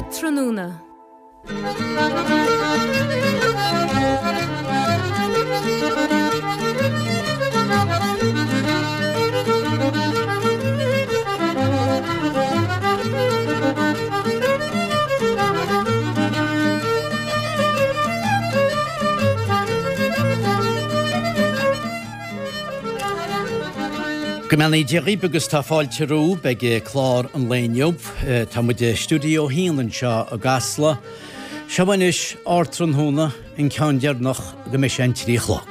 Ardtráthnóna. Go mbeannaí Dia dhaoibh agus tá fáilte romhaibh ag clár an lae inniu. Tá muid i Stiúideo 1 anseo i gCasla. Seo anois Ardtráthnóna, an ceann deireanach go mbeidh sé an 3 a chlog.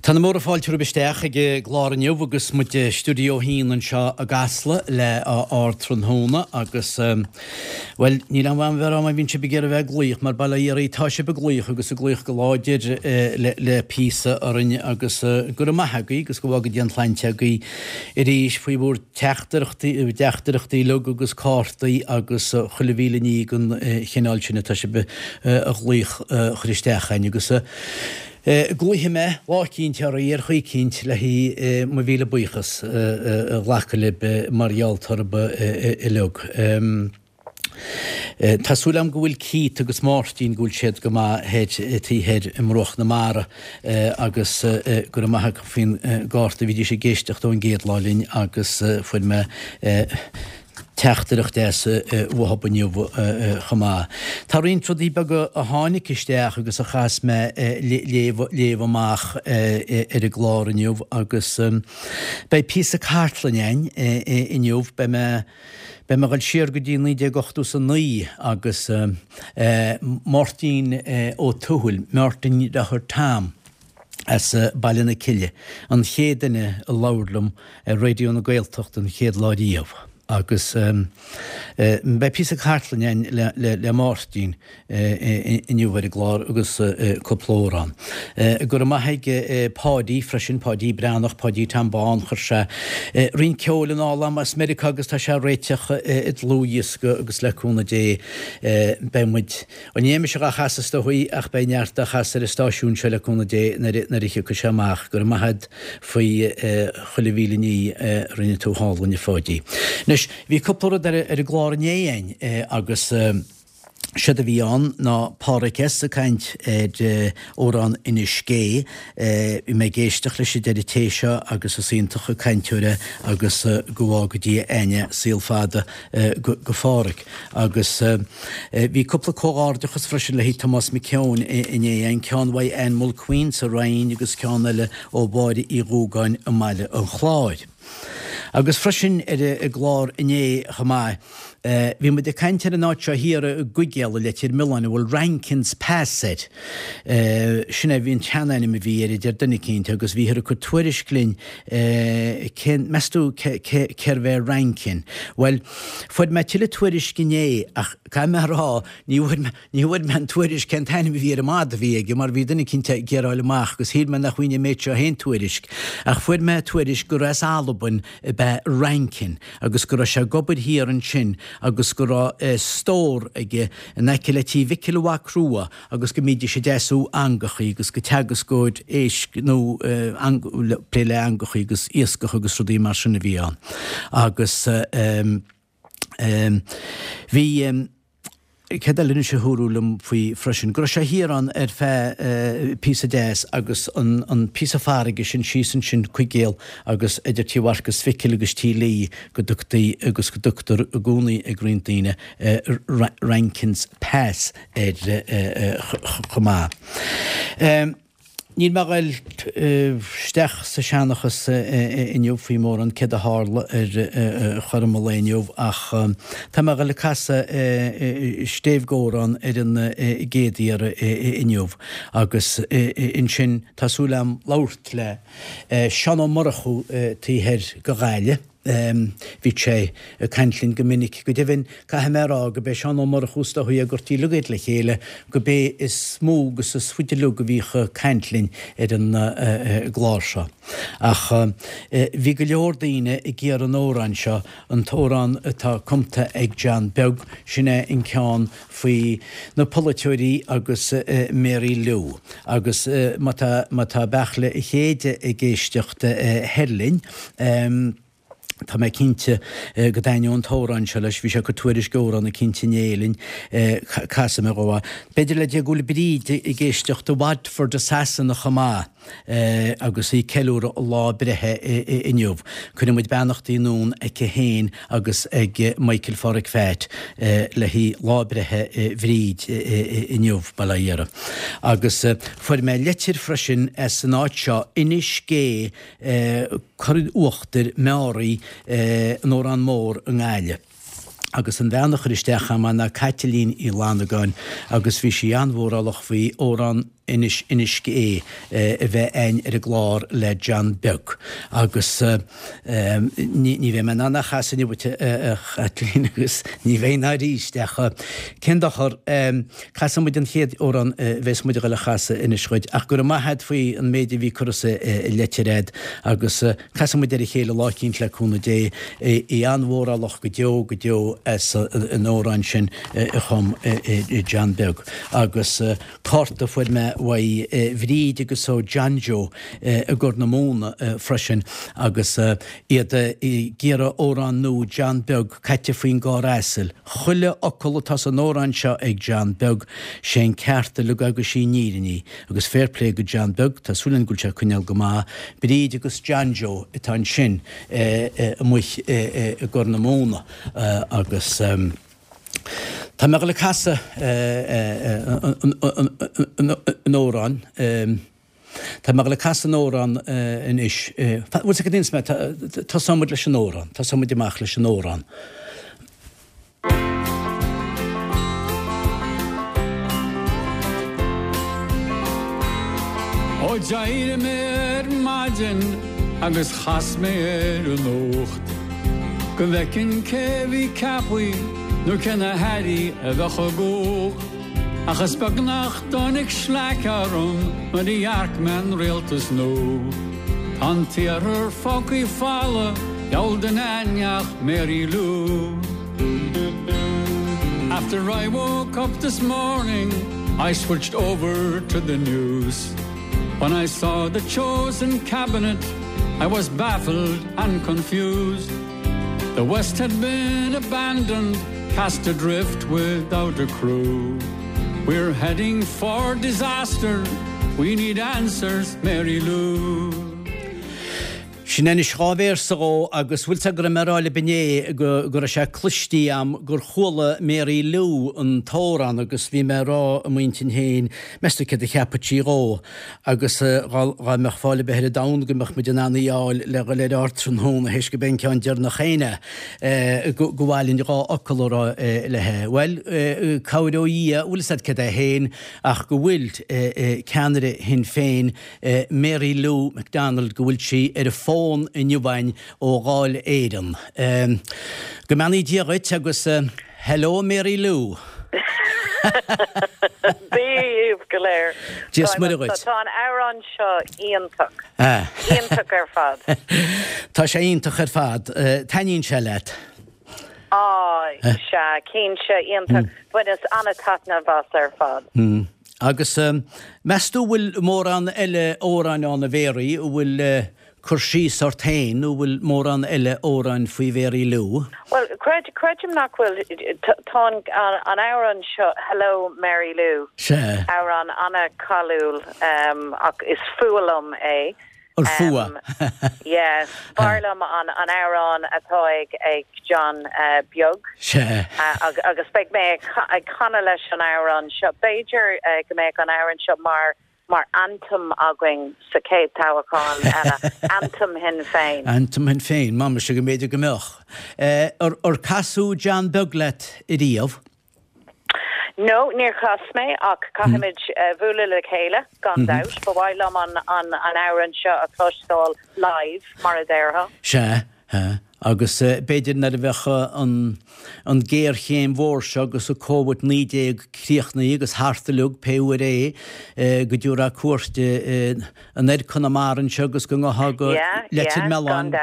Tá na móra fáilte romhaibh isteach ag an gclár inniu agus muid i Stiúideo 1 anseo i gCasla le Ardtráthnóna agus Bhuel, níl aon mhaith a bheith ag rá má bhíonn sibh ag iarraidh a bheith ag glaoch, mar bail ó Dhia oraibh, tá sibh ag glaoch agus ag glaoch go láidir le píosa orainn agus go raibh maith agaibh agus go bhfága Dia an tsláinte agaibh arís faoi bhur dteachtaireachtaí, dteachtaireachtaí uilig agus cártaí agus chuile mhíle ní den chineál sin atá sibh a ghlaoch a chur isteach againn agus Glaofaidh mé lá eicínt oraibh ar chaoi eicínt le haghaidh mo mhíle buíochas a ghlacadh libh mar gheall oraibh uilig. Tá súil agam go bhfuil Keith agus Máirtín, go bhfuil siad go maith thoir, taobh thoir i mbruach na mara agus go raibh maith acu faoin gcárta. Bhídís ag éisteacht ón gcéad lá linn agus fuair mé teachtaireacht deas uathub inniu chomh maith. Tá roinnt rudaí beaga a tháinig isteach agus a chaithfeas mé léamh amach ar an gclár inniu agus beidh píosa cartlainne againn inniu. Beidh mé beidh mé ag dul siar go dtí 1989 agus Máirtín Ó Tuathail, Máirtín Deartháir Tom, as Baile na Cille, an chéad duine a labhair liom ar Raidió na Gaeltachta an chéad lá riamh agus beidh píosa cartlainne againn le Máirtín inniu ar an gclár agus cúpla amhrán. Go raibh maith ag Páidí freisin, Páidí Breathnach, Páidí Tom Bán, chuir sé roinnt ceoil anall agam as Meiriceá agus tá sé á réiteach i dlúthdhiosca agus le cúnamh Dé beidh muid Bhuel, ní bheidh mise dhá chasadh is dóigh ach beidh neart á chasadh ar an stáisiún seo le cúnamh Dé nuair a thiocfaidh sé amach. Go raibh maith agat faoi chuile mhíle ní a rinne tú thall a Pháidí. Anois, bhí cúpla rud ar an gclár inné againn agus séard a bhí ann ná Pádhraic S. ag caint ar amhrán Inis Gé. Bhí mé ag éisteacht leis an deireadh tae seo agus is iontach an cainteoir é agus go bhfága Dia againne saol fada go Phádhraic. Agus bhí cúpla comhghairdeachas freisin le haghaidh Tomás Mac Eoin inné, an ceann uaidh Ann Mulqueen sa Rinn agus ceann eile ó Mháire Uí Dhúgáin i mBaile an Chláir. Agus freisin ar an gclár inné chomh maith, bhí muid ag caint ar an áit seo thiar i gCuigéal i Leitir Mealláin a bhfuil Rankin's Pass air. Sin é an tseanainm a bhí air, a deir duine eicínt, agus bhíothar ag cur tuairisc linn cén, meas tú cérbh é Rankin? Bhuel, Fuair mé tuilleadh tuairisc inné ach caithfidh mé a rá, ní bhfuair mé, ní bhfuair mé an tuairisc cén t-ainm a bhí ar an madadh a bhí aige mar bhí duine eicínt ag iarraidh a fháil amach agus shíl mé nach bhfaighinn an méid seo féin tuairisc. Ach fuair mé tuairisc gur as Albain ab ea Rankin agus go raibh sé ag obair thiar ansin agus go raibh stór aige in aice le Tí Mhicil Mhac Rua agus go mbídís ag deasú eangachaí agus gur teagascóir éisc nó plé le eangachaí agus iascach agus rudaí mar sin a bhí ann. Agus bhí. Céard eile anois a dúradh liom faoi freisin? Go raibh sé thiar ann ar feadh píosa deas agus an píosa farraige sin síos ansin Cuigéal agus idir Tí Mharcas Mhicil agus Tí Lee go dtugtaí agus go dtugtar i gcónaí ag roinnt daoine Rankin's Pass air chomh maith. Níl mé a ghoil isteach sa seanchas inniu faoi mórán céard a tharla ar chothrom an lae inniu ach tá mé a ghoil ag casadh stéibh-amhrán ar an gcéad iarraidh inniu agus ansin tá súil agam labhairt le Seán Ó Murchú taobh thoir de Ghaillimh. Bhí sé ag caint linn go minic. Go deimhin, caithfidh mé a rá go b'é Seán Ó Murchú is dóichí a gcuirtí uilig iad le chéile, go b'é is mó agus is faide uilig a bhíodh ag caint linn ar an gclár seo. Ach bhí go leor daoine ag iarraidh an amhráin seo, an t-amhrán atá cumta ag John Beag, sin é an ceann faoi na polaiteoirí agus Mary Lou. Agus má tá, má tá Beartla a Chéide ag éisteacht thoir linn, Tá mé cinnte go dtaitneodh an t-amhrán seo leis. Bhí sé ag cur tuairisc amhrán eicínt inné linn. Casfaidh mé dhó é. B'fhéidir le Dia go bhfuil Bríd ag éisteacht i Watford i Sasana chomh maith agus í ag ceiliúradh a lá breithe inniu. Cuireann muid beannachtaí anonn aici féin agus ag Michael Pháraic Pheait le haghaidh lá breithe Bhríd inniu, bail ó Dhia uirthi. Agus fuair mé leitir freisin as an áit seo, Inis Gé, Cora Uachtair, Meáraí, an Órán Mór i nGaillimh. Agus an bhean a chuir isteach agam ná Caitlín Uí Fhlannagáin agus bhí sí an-mhórálach faoi amhrán Inis Inis Gé a bheith a'inn ar an gclár le John Beag. Agus ní bheidh mé in ann é a chasadh inniu duit a Chaitlín agus ní bheidh ná arís ach cén dochar, Casfaidh muid an chéad amhrán a bheas muid a dhul a chasadh anois dhuit, ach go raibh maith a'd faoi an méid a bhí curtha sa leitir a'd, agus casfaidh muid ar a chéile lá eicínt le cúnamh Dé. Í an-mhórálach go deo go deo as an amhrán sin a chum John Beag. Agus cárta a fuair mé uaidh Bhríd agus ó John Joe i gCorr na Móna freisin agus iad ag iarraidh amhrán nua John Beag caite faoin gcarr asail. Chuile fhocal atá san amhrán seo ag John Beag, sé an ceart uilig agus sí an fhírinne í. Agus fair play go John Beag, tá súil againn go bhfuil sé ag coinneáil go maith. Bríd agus John Joe atá ansin amuigh i gCorr na Móna agus tá mé ag dul ag casadh an amhráin. Tá mé ag dul ag casadh an amhrán anois. Bhfuil sé go dtí mé, tosóidh muid leis an amhrán, tosóidh muid amach leis an amhrán. Ó d'éirigh mé ar maidin agus chas mé ar an nuacht go bhfeicfinn cé bhí ceaptha nó cé na hairí a bheadh i gcumhacht. Ach is beag nach dtáinig sleaic orm nuair a dhearc mé an rialtas nua. Tá an t-iarthar fágtha folamh, diabhal duine a'inn ach Mary Lou. After I woke up this morning I switched over to the news. When I saw the chosen cabinet I was baffled and confused. The West had been abandoned, cast adrift without a crew. We're heading for disaster, we need answers, Mary Lou. Sin anois dá véarsa dhó agus bhfuil 's a'd go raibh mé a rá libh inné go go raibh sé cloistí a'm gur chuala Mary Lou an t-amhrán agus bhí mé a rá i m'intinn féin meas tú céard a cheapfadh sí dhó. Agus dhá mbeadh fáil ar bith ar an domhan go mbeadh muid in ann í a fháil le dhul ar ardtráthnóna théis go b'é an ceann deireanach féin é, go mba mhaith linn dhá fhocal a rá léi. Bhuel, cabhair ó Dhia, bhfuil 'fhios a'd céard é féin ach go bhfuil ceannaire Shinn Féin, Mary Lou McDonald, go bhfuil sí ar an bhfón inniu againn ó Dháil Éireann. Go mbeannaí Dia dhuit agus. Hello Mary Lou. Dia dhaoibh go léir. Dia is Muire dhuit. Tá an amhrán seo iontach. Iontach ar fad. Tá sé iontach ar fad. Taitníonn sé leat? Á, sea, cinnte, iontach. Bhaineas an-taitneamh as ar fad. Agus meas tú bhfuil mórán eile amhráin ann a Mhéaraí a bhfuil cur síos ort féin nó bhfuil mórán eile amhráin faoi Mhary Lou? Bhuel, Creid, creidim nach bhfuil. Tá an amhrán seo, Hello Mary Lou, Sea. amhrán an-cháiliúil ach is fuath liom é. Ar fuath? Yeah. B'fhearr liom an amhrán atá ag John Beag. Sea. Agus beidh mé ag canadh leis an amhrán seo. B'fhéidir go mbeadh an amhrán seo mar mar anthem againn sa chéad toghchán eile, Anthem Shinn Féin. Anthem Shinn Féin, má mise go mb'fhéidir go mbeadh. Ar casadh John Beag leat ariamh? No, níor chas mé ach caithfimid bualadh le chéile, gan dabht. Ba mhaith liom an amhrán seo a chloisteáil live, mar a déarfá. Sea, agus b'fhéidir nuair a bheadh an ghéarchéim mhór seo agus an Covid-19 críochnaithe agus thart uilig, pé uair é, go dtabharfá cuairt anoir Conamara anseo agus go ngabhfá go Leitir Mealláin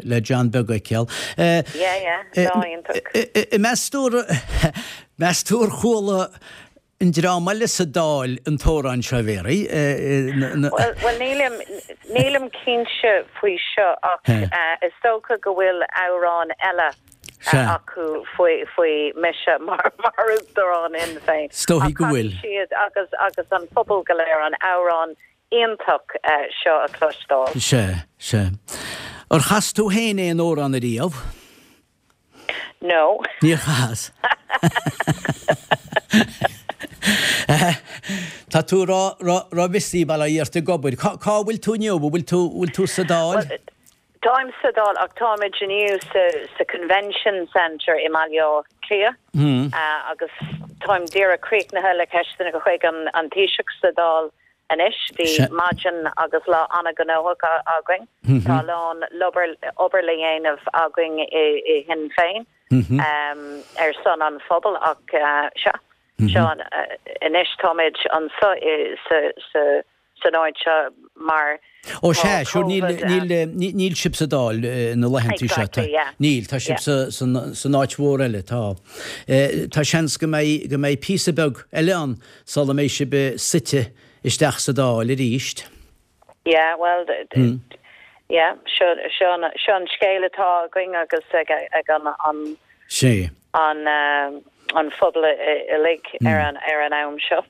le John Beag a fheiceáil. Yeah, yeah, lá iontach. Meas tú, meas tú ar chuala an dream eile sa Dáil an t-amhrán seo, a Mhéaraí? Bhuel, nílim, nílim cinnte faoi seo ach is dócha go bhfuil amhrán eile acu faoi, faoi mise mar, mar Uachtarán Shinn Féin. Is dóichí go bhfuil. Ach caithfidh siad agus, agus an pobal go léir an amhrán iontach seo a chloisteáil. Sea, sea. Ar chas tú féin aon amhrán ariamh? No. Níor chas. Tá tú ró-busy bail ó Dhia ort ag obair. Cá bhfuil tú inniu? An bhfuil tú, bhfuil tú sa Dáil? Bhuel, táim sa Dáil ach táimid inniu sa, sa Convention Centre i mBaile Átha Cliath agus táim díreach críochnaithe le ceisteanna chuig an, an Taoiseach sa Dáil Anois, bhí maidin agus lá an-ghnóthach againn. Tá a lán obair le dhéanamh againn i Shinn Féin ar son an phobail ach sea, seo anois táimid anseo san áit seo mar Ó sea, sure, níl sibh sa Dáil na laethanta seo. Exactly, yeah. Níl, tá sibh san áit mhór eile, tá. Tá seans go mbeidh píosa beag eile ann sula mbeidh sibh suite isteach sa Dáil arís. Yeah, well, yeah, seo, seo an, seo an scéal atá againn agus ag, ag an, an, Sea. an, an phobal uilig ar an, ar an am seo.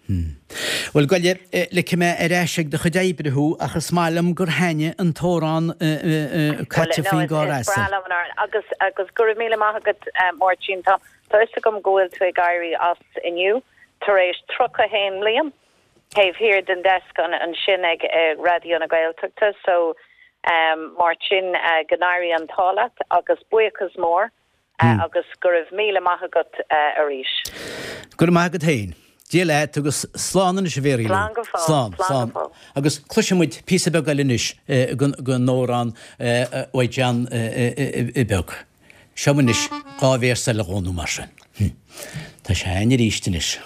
Bhuel, gabh i leith, ligfidh mé ar ais ag do chuid oibre thú ach is maith liom gur thaitnigh an t-amhrán Well, Caite no, faoin is, gcarr is breá asail. liom an amhrán agus, agus go raibh míle maith agat, Máirtín. Tá, tá fhios agam go bhfuil tú ag éirí as inniu. Tar éis 31 mbliain taobh thiar den desk ansin ag Raidió na Gaeltachta so Máirtín go n-éirí an t-ádh leat agus buíochas mór agus go raibh míle maith agat arís. Go raibh maith agat féin. Dia leat agus slán anois a Mhéaraí Lou. Slán go fóill. Slán, Slán go slán. fóill. Agus cloisfidh muid píosa beag eile anois den amhrán uaidh John Beag. Seo anois dá véarsa eile dhó nó mar sin. Tá sé a'inn arís anois.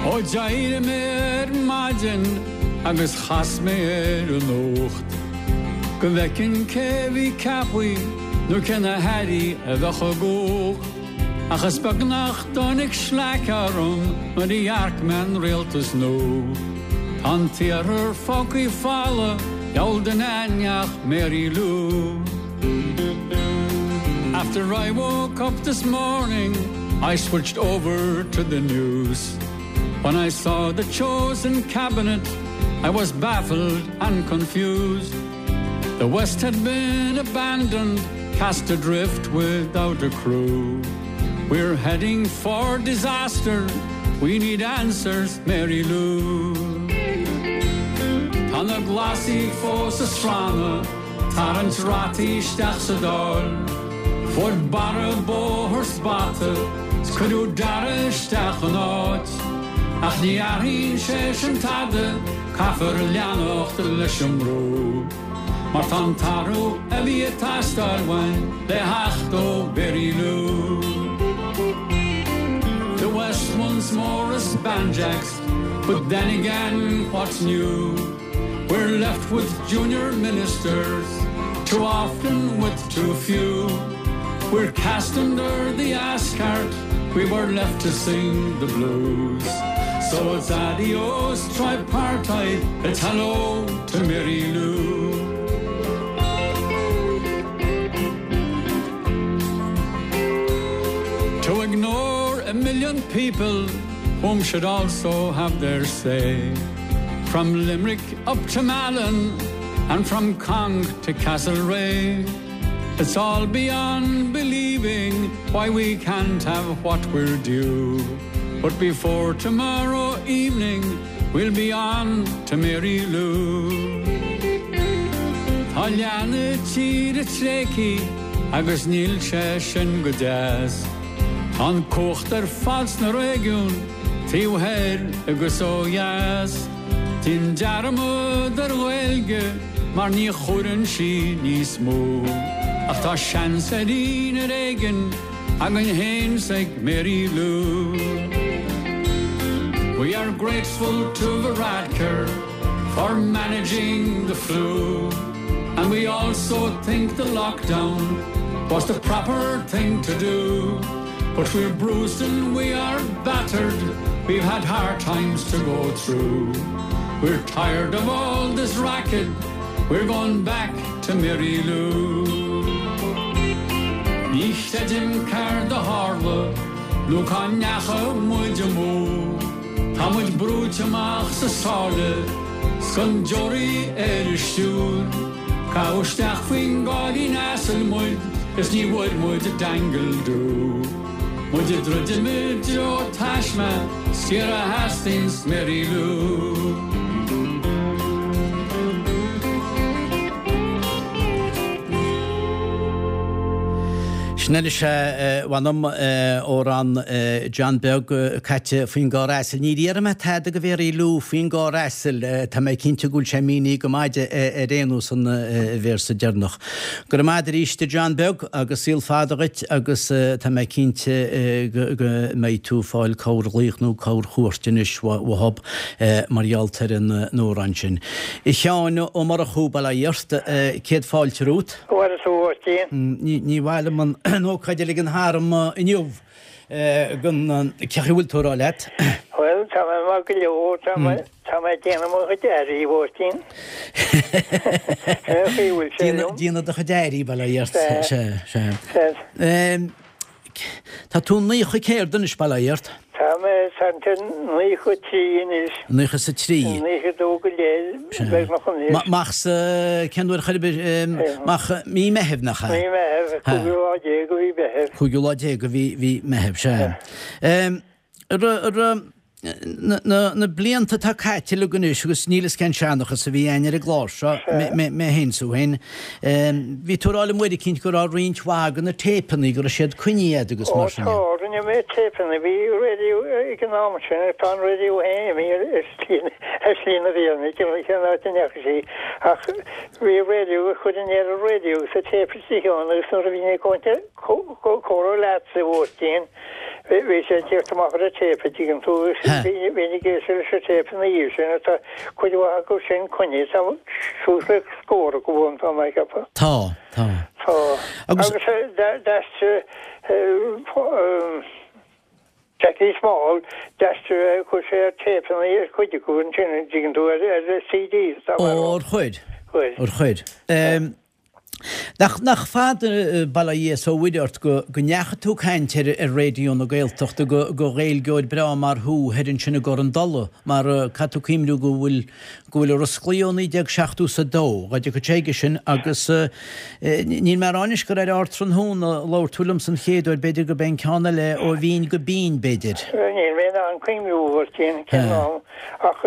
Ó d'éirigh mé ar maidin agus chas mé ar an nuacht go bhfeicfinn cé bhí ceaptha nó cé na hairí a bheadh i gcumhacht. Ach is beag nach dtáinig sleaic orm nuair a dhearc mé an rialtas nua. Tá an t-iarthar fágtha folamh, diabhal duine ann ach Mary Lou. After I woke up this morning I switched over to the news. When I saw the chosen cabinet I was baffled and confused. The West had been abandoned, cast adrift without a crew. We're heading for disaster, we need answers, Mary Lou. Tá na Glasaigh fós ag srannadh, tarraingt rataí isteach sa Dáil. Fuair Barra bóthar 's bata, 's cuireadh Darragh isteach ina áit. Ach ní athraíonn sé sin tada, caithfear leanacht leis an mbrú. Mar tá an t-athrú a bhí ag teastáil uainn le theacht ó Mhary Lou. The West once more is banjaxed, but then again what's new? We're left with junior ministers, too often with too few. We're cast under the ass cart, we were left to sing the blues. So it's adios tripartite, it's hello to Mary Lou. To ignore a million people whom should also have their say. From Limerick up to Malin and from Cong to Castlereagh. It's all beyond believing why we can't have what we're due. But before tomorrow evening we'll be on to Mary Lou. Tá leath na tíre tréigthe agus níl sé sin go deas. Tá an cumhacht ar fad sna réigiúin taobh thoir agus ó dheas. Déan dearmad ar Ghaeilge mar ní chuireann sí níos mó. Ach tá seans ar ar éigean againn féin 's ag Mary Lou. We are grateful to Varadkar for managing the flu and we also think the lockdown was the proper thing to do. But we're bruised and we are battered, we've had hard times to go through. We're tired of all this racket, we're going back to Mary Lou. Ní chreidim céard a tharla nó cá ndeachaigh muid amú. Tá muid brúite amach sa sáile 's gan deoraí ar an stiúir. Caitheadh isteach faoin gcáilín asail muid is ní bhfuair muid dangle doo. Muid ag druidim i dtreo taisme, Ciara Hastings, Mary Lou. Sin anois é, mh'anam, amhrán John Beag caite faoin gcarr asail. Níor iarr mé tada go Mhary Lou faoin gcarr asail. Tá mé cinnte go bhfuil sé mínithe go maith aici ar aon nós an véarsa deireanach. Go raibh maith agat arís a John Beag agus saol fada dhuit agus tá mé cinnte go mbeidh tú ag fáil corrghlaoch nó corrchuairt anois uathub mar gheall ar an amhrán sin. A Sheáin Ó Murchú, bail ó Dhia ort, céad fáilte romhat. Bhuel, a Mháirtín. Ní mhaith liom an ócáid a ligean tharam inniu gan cén chaoi a bhfuil tú a rá leat. Bhuel, tá mé maith go leor, tá mé, tá mé ag déanamh mo chuid airí, a Mháirtín. Cén chaoi a bhfuil sé liom? Déanamh do chuid airí, bail ó Dhia ort. Sea, sea. Tá tú 90 céard anois, bail ó Dhia ort? Tá mé 93 anois. 93. 92 go leith, beagnach anois. Mach sa, cén uair chor ar bith, mach mí Meithimh, nach ea? Mí Mheithimh, cúigiú lá déag de mhí Mheithimh. Cúigiú lá déag de mhí Mheithimh, sea. Na blianta atá caite uilig anois agus níl fhios cén seanchas a bhí againn ar an gclár seo, mé féin 's tú féin, bhí tú ag rá liom uair eicínt go raibh roinnt mhaith de na téipeanna, go raibh siad coinnithe agat agus mar sin de. Ó tá, rinne mé téipeanna, bhí raidió ag an am sin agus tá an raidió féin imithe ar shlí na bhFiann, cén áit a ndeachaigh sí, ach bhí raidió agus chuirfinn ar an raidió agus an téip istigh ann agus nuair a bhínn ag comhrá leatsa a Mháirtín, Bhí sé ag tíocht amach ar an téip, a dtuigeann tú, agus bhínn ag éisteacht leis an téip ina dhiaidh sin, agus tá cuid mhaith acu sin coinnithe, tá suas le scór acu ann, tá mé ag ceapadh. Tá, tá. Tá. Agus d'aistrigh Jackie Small, d'aistrigh, chuir sé ar téipeanna ar chuid acu ansin, a dtuigeann tú, ar CDs, tá mé a rá. Ó, ar chuir? Chuir. Ar chuir. Nach, nach fada, bail ó Dhia is ó Mhuire ort, go, go ndeachaigh tú ag caint ar, ar Raidió na Gaeltachta go, go Ghaeilgeoir breá mar thú thoir ansin i gCorr an Dola, mar caithfidh tú cuimhniú go bhfuil, go bhfuil i Ros Lao ó 1970 is a dó, dhá dtiocfadh sé aige sin agus níl mé a rá anois gur ar Ardtráthnóna a labhair tú liomsa an chéad uair, b'fhéidir gurb é an ceann eile ó bhinn go binn, b'fhéidir. Níl mé in ann cuimhniú, a Mháirtín, cén am, ach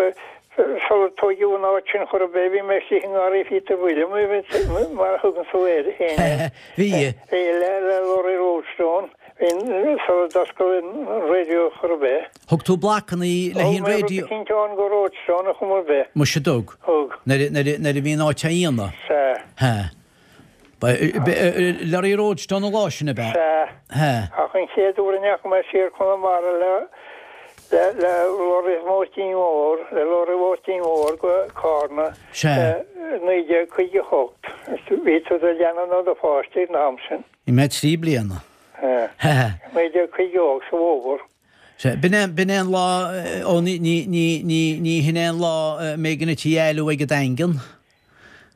Sular tóigeadh an áit sin chor ar bith, bhí mé istigh i ngarraí Phíotair William, mar a thugann tú air féin é. Bhí. Bhí, le Laurie Roadstone, bhí, sular d'oscail an raidió chor ar bith. Thug tú blocanna le haghaidh an raidió? Thug mé rud eicínt ann go Roadstone a chuma ar bith. Muise dtug. Thug. Nuair a bhí an áit á dhéanamh? Sea. Sea. Laurie Roadstone an lá sin, ab ea? Sea. Ach an chéad uair a ndeachaigh mé siar Conamara le le le Laurie Mháirtín Mhóir, le Laurie Mháirtín Mhóir go Cárna Sea. 1958. Bhí tú i do leanbh nó do pháiste ag an am sin. Bhí mé 3 bliana. Sea. 1958 sa bhfómhar. Sea, b'in é, b'in é an lá, ó ní, ní, ní, ní, ní hin é an lá a mbeidh an tí éalú ag an Daingean.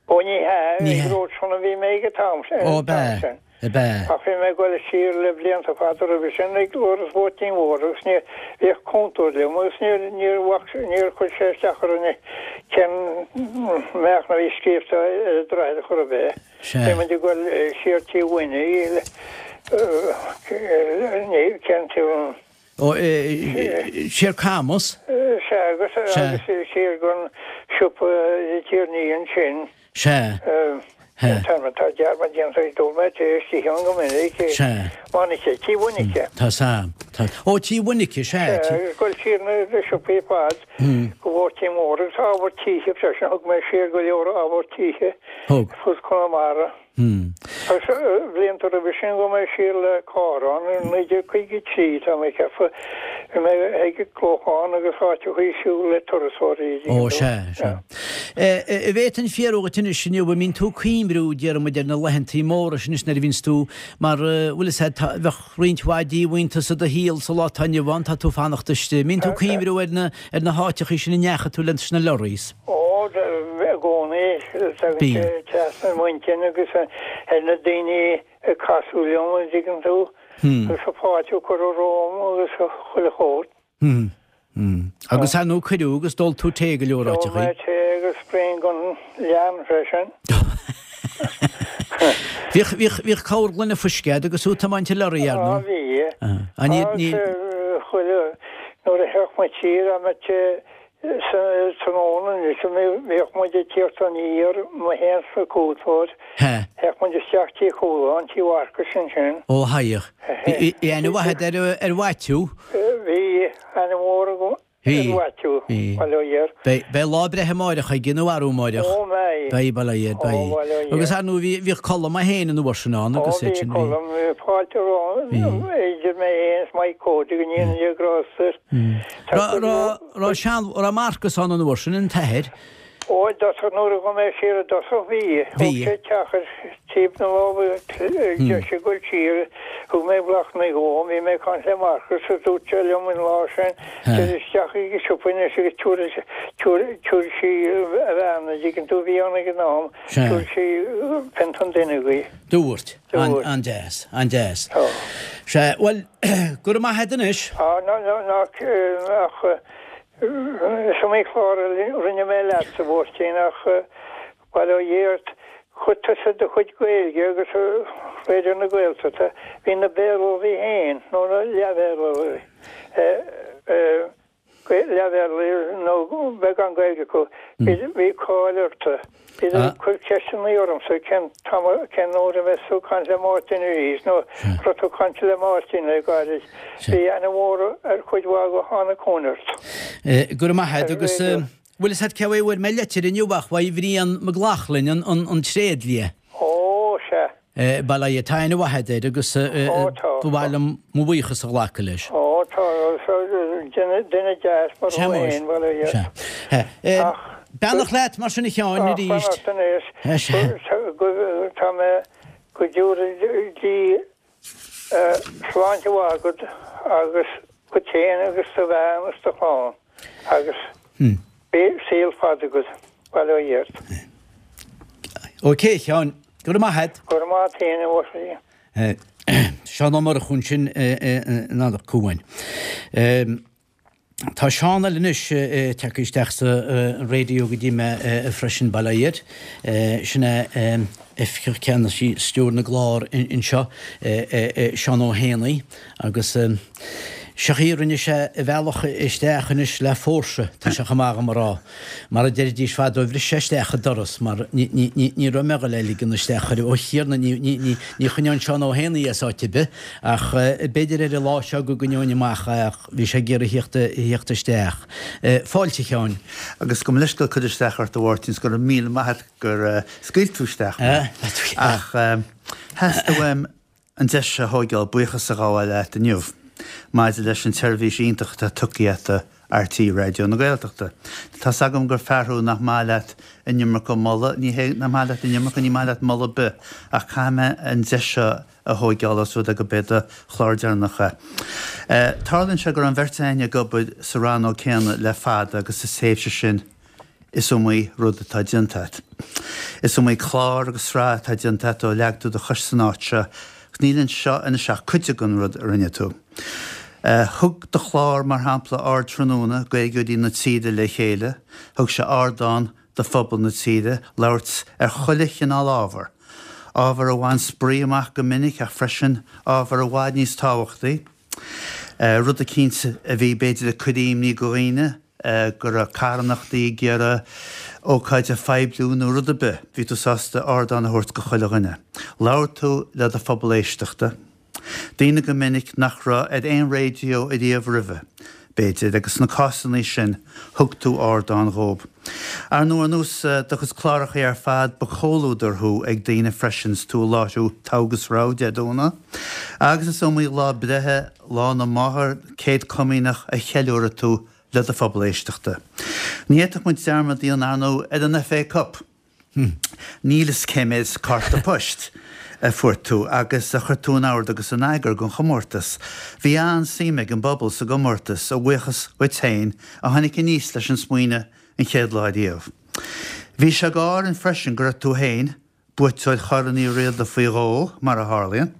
Ó ní hea, Ní ag hea. Ród Sean a bhí mé ag an t-am sin, Ó, ab ea, sin. ab ea. Ach bhí mé ag goil siar le blianta fada roimhe sin ag Iorras Mháirtín Mhór agus ní, bhíodh cúntóir liom agus níor, níor bhac, níor chuir sé isteach orainn cén meáchan a bhí scríobhta ar an droichead chor ar bith. Sea. Bhí muid ag goil siar Tí Mhuiní, ní, cén tí an. Ó, siar Camus. Sea, agus agus siar gon siopa Tierney ansin. Sea. Tá tá dearmad déanta ag dul mé tar éis istigh ann go minic. Sea. Mhainice, Tí Mhainice. Tá sa. Tá. Ó, Tí Mhainice, sea. Sea, agus goil siar na siopaí ar fad go Mháirtín Mór agus ábhar títhe freisin, thug mé siar go leor ábhar títhe. Thug. Fud Chonamara. Agus blianta roimhe sin ghabh mé siar le carr ann i 1953, tá mé ag ceapadh, bhí mé ag Clochán agus áiteachaí ag siúl le turasóirí. Ó, sea, sea. An bhféadfainn fiafraí dhuit anois inniu, an mbíonn tú ag cuimriú, déarfaidh muid, ar na laethantaí móra sin anois nuair a bhíonns tú, mar, bhfuil fhios a'd, tá, bheadh roinnt mhaith díomhaointeas i do shaol sa lá atá inniu ann, tá tú fanacht istigh. An mbíonn tú ag cuimriú ar na, ar na háiteachaí sin a ndeachaigh tú leis na lorries? Ó, i gcónaí, tagann sé trasna m'intinn agus ar na daoine a casadh liom, an dtuigeann tú, agus an fáilte a cuireadh romham agus chuile shórt. Agus ar ndóigh cuireadh agus d'ól tú tae go leor áiteachaí. D'ól mé tae agus braon den leann freisin. Bhíodh, bhíodh, bhíodh corr gloine fuisce a'd agus tú ag tiomáint an lorry, ar ndóigh. Á, bhí. Agus chuile, nuair a theacht muid siar, a mbeadh Sa tráthnóna anois, bhíodh muid ag tíocht aniar, mé féin 's an cúntóir. Théadh muid isteach Tí Chualáin, Tí Mharcais ansin. Ó, théadh. Bhí aithne mhaith agat ar, ar Mhaitiú? Bhí aithne mhór agam ar Mhaitiú, bail ó Dhia air. Beidh, beidh lá breithe amáireach aige nó arú amáireach. Ó, mbeidh. Beidh, bail ó Dhia air, beidh. Ó, bail ó Dhia. Agus ar ndóigh bhí, bhíodh Colm é féin an uair sin ann agus iad sin, bhí. Ó, bhí Colm, bhí fáilte romham, idir mé féin is Mike Cody, go ndéana Dia grásta air. Raibh sean, raibh Marcus ann an uair sin, an t-athair? Ó, i dtosach, nuair a ghabh mé siar i dtosach, bhí. Thóg sé teach ar taobh na láimhe deise ag goil siar, thug mé Bláthnaid dhó, bhí mé ag caint le Marcus agus dúirt sé liom an lá sin, téir isteach ag an siopa anois agus tabharfaidh, tabharfaidh sí a bhean, an dtuigeann tú, a bhí ann ag an am, tabharfaidh sí pionta an duine dhi. Dúirt. An-deas, an-deas. Sea, bhuel, go raibh maith a't anois. Á, ná, ná, ná, ach is iomaí clár a rinne mé leatsa, a Mháirtín, ach bail ó Dhia ort, chuir tusa do chuid Gaeilge agus Raidió na Gaeltachta, bhí na Béarlóirí féin, nó na leath-Bhéarlóirí, leath-Bhéarlóirí nó beagán Gaeilge acu, bhí cáil orthu. Bhíodar ag cur ceisteanna ormsa cén t-am, cén uair a bheas tú ag caint le Máirtín arís nó an raibh tú ag caint le Máirtín le gairid. Bhí aithne mhór ar chuid mhaith acu a tháinig chugainn ort. Go raibh maith a't agus bhfuil fhios a't cé uaidh a bhfuair mé leitir inniu ach uaidh Bhrian Mac Lochlainn an tréidlia. Ó, sea. Bail ó Dhia, tá aithne mhaith agat air agus ba mhaith liom mo bhuíochas a ghlacadh leis. Ó tá, duine deas mar thú féin, bail ó Dhia. Sea. Beannacht leat mar sin a Sheáin arís. Ach beannacht anois. Tá mé go dtabhra Dia sláinte mhaith agat agus duit féin agus do bhean agus do chlann agus beidh saol fada agat, bail ó Dhia ort. Ok, a Sheáin. Go raibh maith agat. Go raibh maith agat féin, a Mháirtín. Seán Ó Murchú ansin in Anach Cuain. Tá Seán eile anois tagtha isteach sa raidió go dtí mé freisin, bail ó Dhia air. Sin é Oifigeach Ceannais Stiúir na gClár anseo, Seán Ó hÉanaí, agus seo í, rinne sé a bhealach isteach anois le fórsa, tá sé chomh maith dhom a rá. Mar a deiridís fadó, bhris sé isteach an doras mar ní raibh mé ag dul é a ligean isteach chuir, ó Thiarna, ní choinneoinn Seán Ó hÉanaí as áit ar bith ach b'fhéidir ar an lá seo go gcoinneoinn amach é ach bhí sé ag iarraidh theacht isteach. Fáilte, a Sheáin. Agus gabh mo leithscéal cur isteach ort a Mháirtín 's go raibh míle maith a't gur scaoil tú isteach mé. Ach theastaigh uaim an deis a thóigeáil buíochas a ghabháil leat inniu maidir leis an tseirbhís iontach atá tugtha agat. RTÉ Raidió na Gaeltachta. Tá's agam gur fear thú nach maith leat an iomarca moladh, ní hé nach maith leat an iomarca, ní maith leat moladh ar bith, ach caithfidh mé an deis seo a thóigeáil os rud é go b'é do chlár deireanach é. Tarlaíonn sé go raibh an bheirt againn ag obair sa rannóg céanna le fada agus sa tréimhse sin is iomaí rud atá déanta agat. Is iomaí clár agus sraith atá déanta agat ó leag tú do chois san áit seo agus níl anseo anois ach cuid den rud a rinne tú. Thug do chlár, mar shampla, Ardtráthnóna, Gaeilgeoirí na tíre le chéile, thug sé ardán do phobal na tíre labhairt ar chuile chineál ábhar, ábhar a bhain spraoi amach go minic ach freisin ábhar i bhfad níos tábhachtaí, rud eicínt a bhí b'fhéidir ag cur imní go dhaoine, go raibh carthanachtaí ag iarraidh ócáid a phoibliú nó rud ar bith, bhí tú sásta ardán a thabhairt go chuile dhuine. Labhair tú le do phobal éisteachta. Daoine go minic nach raibh ar aon raidió ariamh roimhe, b'fhéidir, agus sna cásannaí sin, thug tú ardán dhób. Ar ndóigh, ar nós do chuid clárachaí ar fad, ba chomhluadar thú ag daoine freisin 's tú ag láithriú Togha agus Rogha Dé Domhnaigh, agus is iomaí lá breithe, Lá na Máthar, Céad Comaoineach a cheiliúraigh tú le do phobal éisteachta. Ní fhéadfadh muid dearmad a dhéanamh, ar ndóigh, ar an FA Cup! Níl fhios cé méid cárta poist a fuair tú agus a chuir tú in ord agus in eagar don chomórtas. Bhí an-suim ag an bpobal sa gcomórtas, a bhuíochas dhuit féin, a tháinig aníos leis an smaoineamh an chéad lá riamh. Bhí sé go árainn freisin go raibh tú féin, buaiteoir Chorn Uí Riada faoi dhó, mar a tharlaíonn,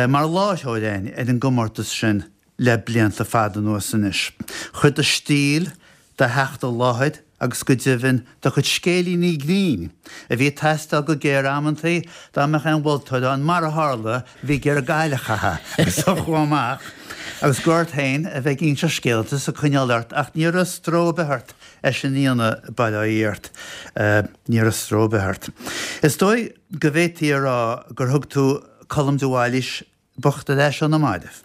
mar láithreoir againn ar an gcomórtas sin le blianta fada anuas anois. Chuir do stíl, do theacht i láthair agus go deimhin do chuid scéilíní grinn, a bhí ag teastáil go géar amantaí dá mbeadh aon mholtóir ann, mar a tharla, a bhí ag iarraidh gail a chaitheamh agus a chuaigh amach agus gur ort féin a bheith ag inseacht scéalta is ag coinneáil ort ach ní raibh stró ar bith ort é sin a dhéanamh, bail ó Dhia ort, ní raibh stró ar bith ort. Is dóigh go bhféadfaí a rá gur thug tú Colm de Bhailís bocht ar ais ó na mairbh.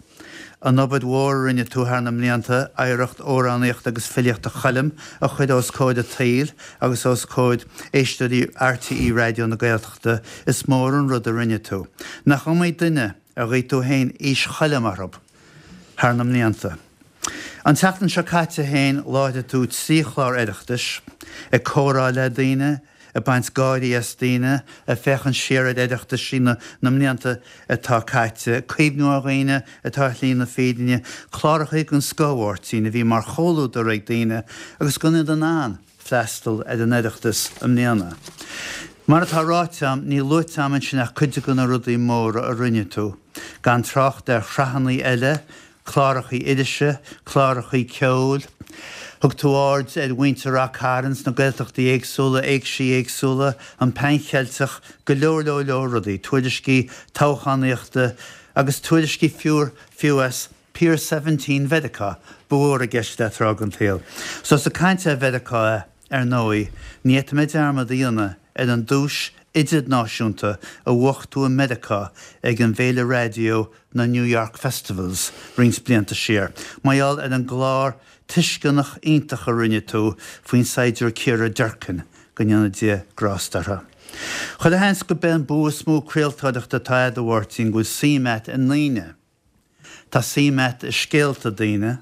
An obair mhór a rinne tú thar na mblianta, oidhreacht amhránaíochta agus filíochta Choilm a chur os comhair an tsaoil agus os comhair éisteoirí RTÉ Raidió na Gaeltachta, is mór an rud a rinne tú. Nach iomaí duine ar ghuigh tú féin aois Choilm orthu thar na mblianta. An tseachtain seo caite féin láithrigh tú 3 chlár Oireachtais, ag comhrá le daoine, ag baint gáirí as daoine, ag féachaint siar ar Oireachtaisí na mblianta atá caite, cuimhniú ar dhaoine atá ar shlí na fírinne, clárachaí den scoth, a Mháirtín, a bhí mar chomhluadar ag daoine agus gan iad in ann freastal ar an Oireachtas i mbliana. Mar atá ráite a'm, níl luaite a'm ansin ach cuid de na rudaí móra a rinne tú, gan trácht ar shraitheanna eile, clárachaí irise, clárachaí ceoil. Thug tú aird ar mhuintir Rath Cairn sna Gaeltachtaí éagsúla, éigsí éagsúla, an Pan Cheilteach, go leor leor leor rudaí, tuairiscí toghchánaíochta agus tuairiscí fiú fiú as Pier Seventeen Mheiriceá, ba mhór i gceist leat tráth den tsaol. So ós ag caint ar Mheiriceá é, ar ndóigh, ní fhéadfaidh mé dearmad a dhéanamh ar an duais idirnáisiúnta a bhuaigh tú i Meiriceá ag an bhféile raidió na New York Festivals roinnt blianta siar, mar gheall ar an gclár tuisceanach iontach a rinne tú faoin saighdiúir Ciara Durkin, go ndéana Dia grásta uirthi. Chuile sheans gurb é an bua is mó craoltóireachta atá agat, a Mháirtín, go bhfuil suim agat i ndaoine. Tá suim agat i scéalta daoine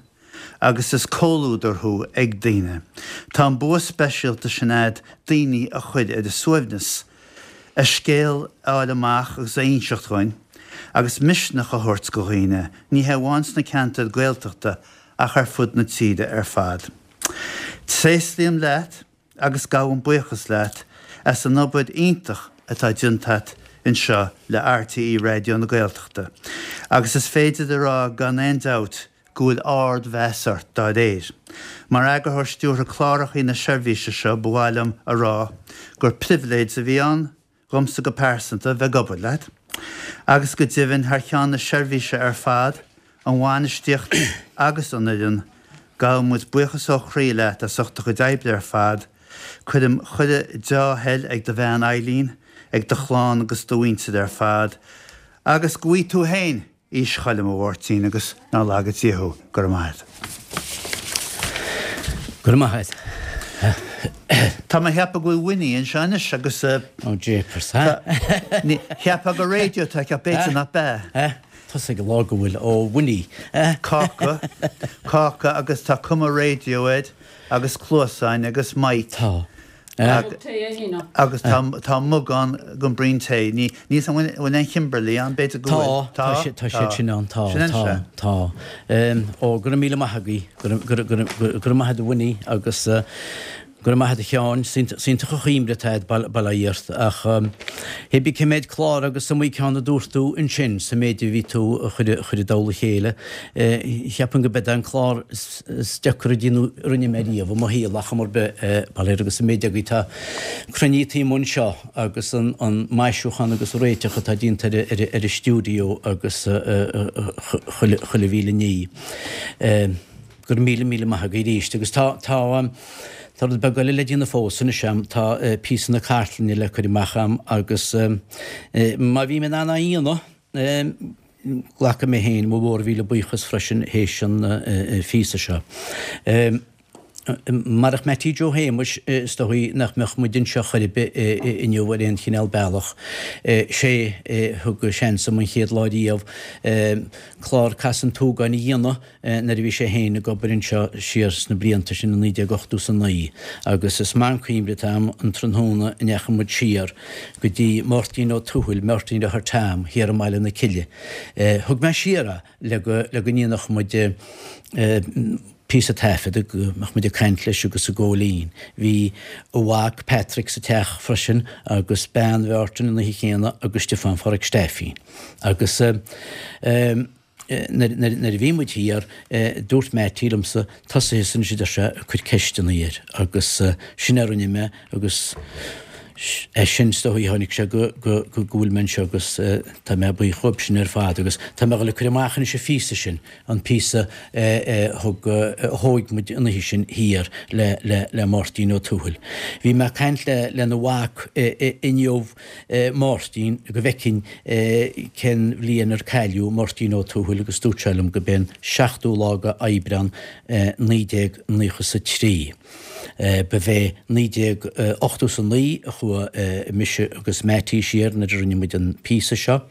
agus is comhluadar thú ag daoine. Tá an bua speisialta sin agat daoine a chur ar a suaimhneas, a scéal a fháil amach agus a inseacht dhuinn, agus misneach a thabhairt go dhaoine, ní hé amháin sna ceantair Gaeltachta ach ar fud na tíre ar fad. Tréaslaím leat agus gabhaim buíochas leat as an obair iontach atá déanta agat anseo le RTÉ Raidió na Gaeltachta agus is féidir a rá gan aon dabht go bhfuil ard-mheas ort dá réir. Mar Eagarthóir Stiúrtha Clárachaí na seirbhíse seo ba mhaith liom a rá gur pribhléid a bhí ann dhomsa go pearsanta bheith ag obair leat, agus go deimhin thar cheann na seirbhíse ar fad, an bhainistíocht agus an fhoireann, gabhann muid buíochas ó chroí leat as ucht do chuid oibre ar fad. Cuirim chuile deá-thoil ag do bhean Eileen, ag do chlann agus do mhuintir ar fad, agus go bhfaighe tú féin Aois Choilm, a Mháirtín, agus nár laga Dia thú. Go raibh maith agat. Go raibh maith agat. Tá mé a cheapadh go bhfuil Winnie anseo anois agus. Oh jeepers, ha? Cheapfá gur raidió atá aici ach b'fhéidir nach b'ea. Tusa ag lá go bhfuil ó Winnie. Cáca, cáca agus tá cuma raidió air agus cluasáin agus mic. Tá. Mug tae é fhéin. Agus tá tá mug ann don braon tae. Ní níl 's an bhfuil aon Kimberley ann, b'fhéidir go bhfuil. Tá, tá tá siad sin ann, tá, tá, tá. Ó, go raibh míle maith agaibh, go raibh, go raibh, go raibh maith agat a Winnie agus Go raibh maith agat a Sheáin, 's iontach an chuimhne atá agat bail ó Dhia ort, ach hé bí cé méid clár agus is iomaí ceann a dúirt tú ansin sa méid a bhí tú a chur i dtoll a chéile. Cheapfainn go b'é an clár is deacra a déanadh a rinne mé riamh i mo shaol ach am ar bith, bail air agus an méid agaibh atá cruinnithe taobh amuigh anseo agus an maisiúchán agus an réiteach atá déanta ar an stiúideo agus chuile mhíle ní. Go raibh míle, míle maith agaibh arís. Agus tá, tá, tá rud beag eile le déanamh fós anois a'm, tá píosa na cartlainne le cur amach a'm agus má bhím in ann á dhéanamh, glacfaidh mé féin mo mhórmhíle buíochas freisin théis an phíosa seo. Marach Mattie Joe Shéamuis is dóigh nach mbeadh muid anseo chor ar bith inniu ar aon chineál bealach. Sé a thug seans dom an chéad lá riamh clár Casadh an tSúgáin a dhéanamh nuair a bhí sé féin ag obair anseo siar sna blianta sin i 1989 agus is maith an cuimhne atá a'm an tráthnóna a ndeachaigh muid siar go dtí Máirtín Ó Tuathail, Máirtín Deartháir Tom, thiar i mBaile na Cille. Thug mé siar é le go le go ndéanfadh muid píosa taifead, go mbeadh muid ag caint leis agus ag gabháil fhoinn. Bhí a mhac Patrick sa teach freisin agus bean Mháirtín an oíche chéanna agus Stiofán Pháraic Steifín. Agus Nuair a bhí muid thiar, dúirt Mattie liomsa, tosaigh thusa anois a deir sé, ag cur ceisteanna air agus sin a rinne mé agus as sin is dóigh a tháinig sé go go go bhfuil mé anseo agus tá mé buíoch dhóibh sin ar fad agus tá mé ag dul ag cur amach anois an phíosa sin, an píosa a thug a thóig muid an oíche sin thiar le le le Máirtín Ó Tuathail. Bhí mé ag caint le lena mhac inniu Máirtín go bhfeicfinn cén bhliain ar cailleadh Máirtín Ó Tuathail agus dúirt sé liom go b'é an seachtú lá de Aibreán 1993. Ba bhé 1989 a chuaigh mise agus Mattie siar nuair a rinne muid an píosa seo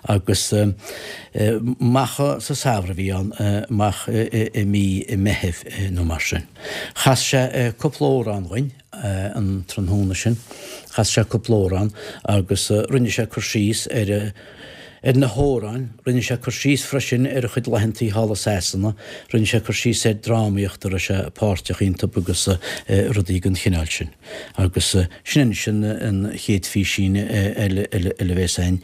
agus amach sa samhradh a bhí ann, amach i mí Meithimh nó mar sin. Chas sé cúpla amhrán dhuinn. an tráthnóna sin. Chas sé cúpla amhrán agus rinne sé cur síos ar ar na hamhráin, rinne sé cur síos freisin ar a chuid laethantaí thall i Sasana, rinne sé cur síos ar drámaíocht a raibh sé páirteach iontu agus rudaí den chineál sin. Agus sin anois an chéad phísín eile eile a bhéas againn.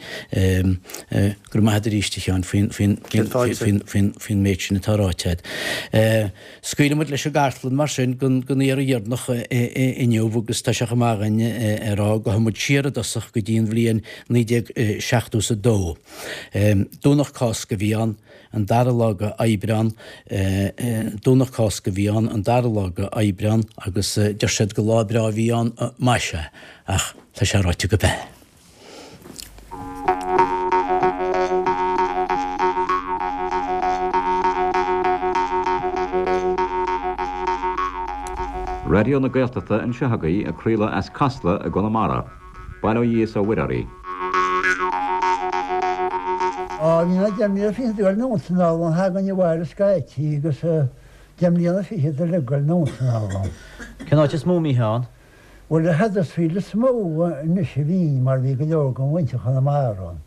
Go raibh maith agat arís a Sheáin faoin faoin faoin faoin faoin méid sin atá ráite agat. Scaoilfidh muid leis an gcartlann mar sin don iarraidh dheireanach inniu agus tá sé chomh maith againn a rá go ghabhfaidh muid siar i dtosach go dtí an bhliain 1972. Domhnach Cásca a bhí ann, an dara lá de Aibreán, Domhnach Cásca a bhí ann, an dara lá de Aibreán agus deir siad gur lá breá a bhí ann, más ea, ach tá sé ráite go b'ea. Raidió na Gaeltachta anseo agaibh ag craoladh as Casla i gConamara. Bail ó Dhia is ó Mhuire oraibh. Á, bhí mé deich mbliana fichead ag dul anonn 's anall ann, thagainn abhaile scaití agus deich mbliana fichead uilig ag dul anonn 's anall ann. Cén áit is mó a mbítheá ann? Bhuel, i Huddersfield is mó anois a bhínn mar bhí go leor den mhuintir Chonamara ann.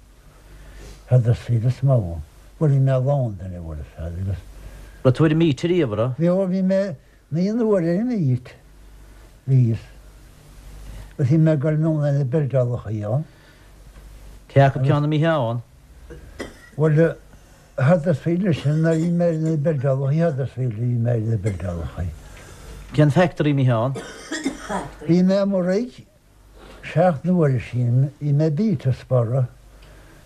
Huddersfield is mó. Bhuel, bhí mé i Londain, a bhfuil fhios a'd, agus. Raibh tú ar an Meet ariamh, a raibh? Bhí, ó bhí mé naoi n-uaire ar an Meet. Bhíos. Agus bhí mé ag dul anonn ar na buildeálachaí ann. Cé acu ceann a mbítheá ann? Bhuel, Huddersfield leis sin, nuair a bhí mé ar na buildeálachaí Huddersfield a bhí mé ar na buildeálachaí. Cén factory a mbítheá ann? Bhí mé i Maigh seacht n-uaire sin, bhí mé i bPetersborough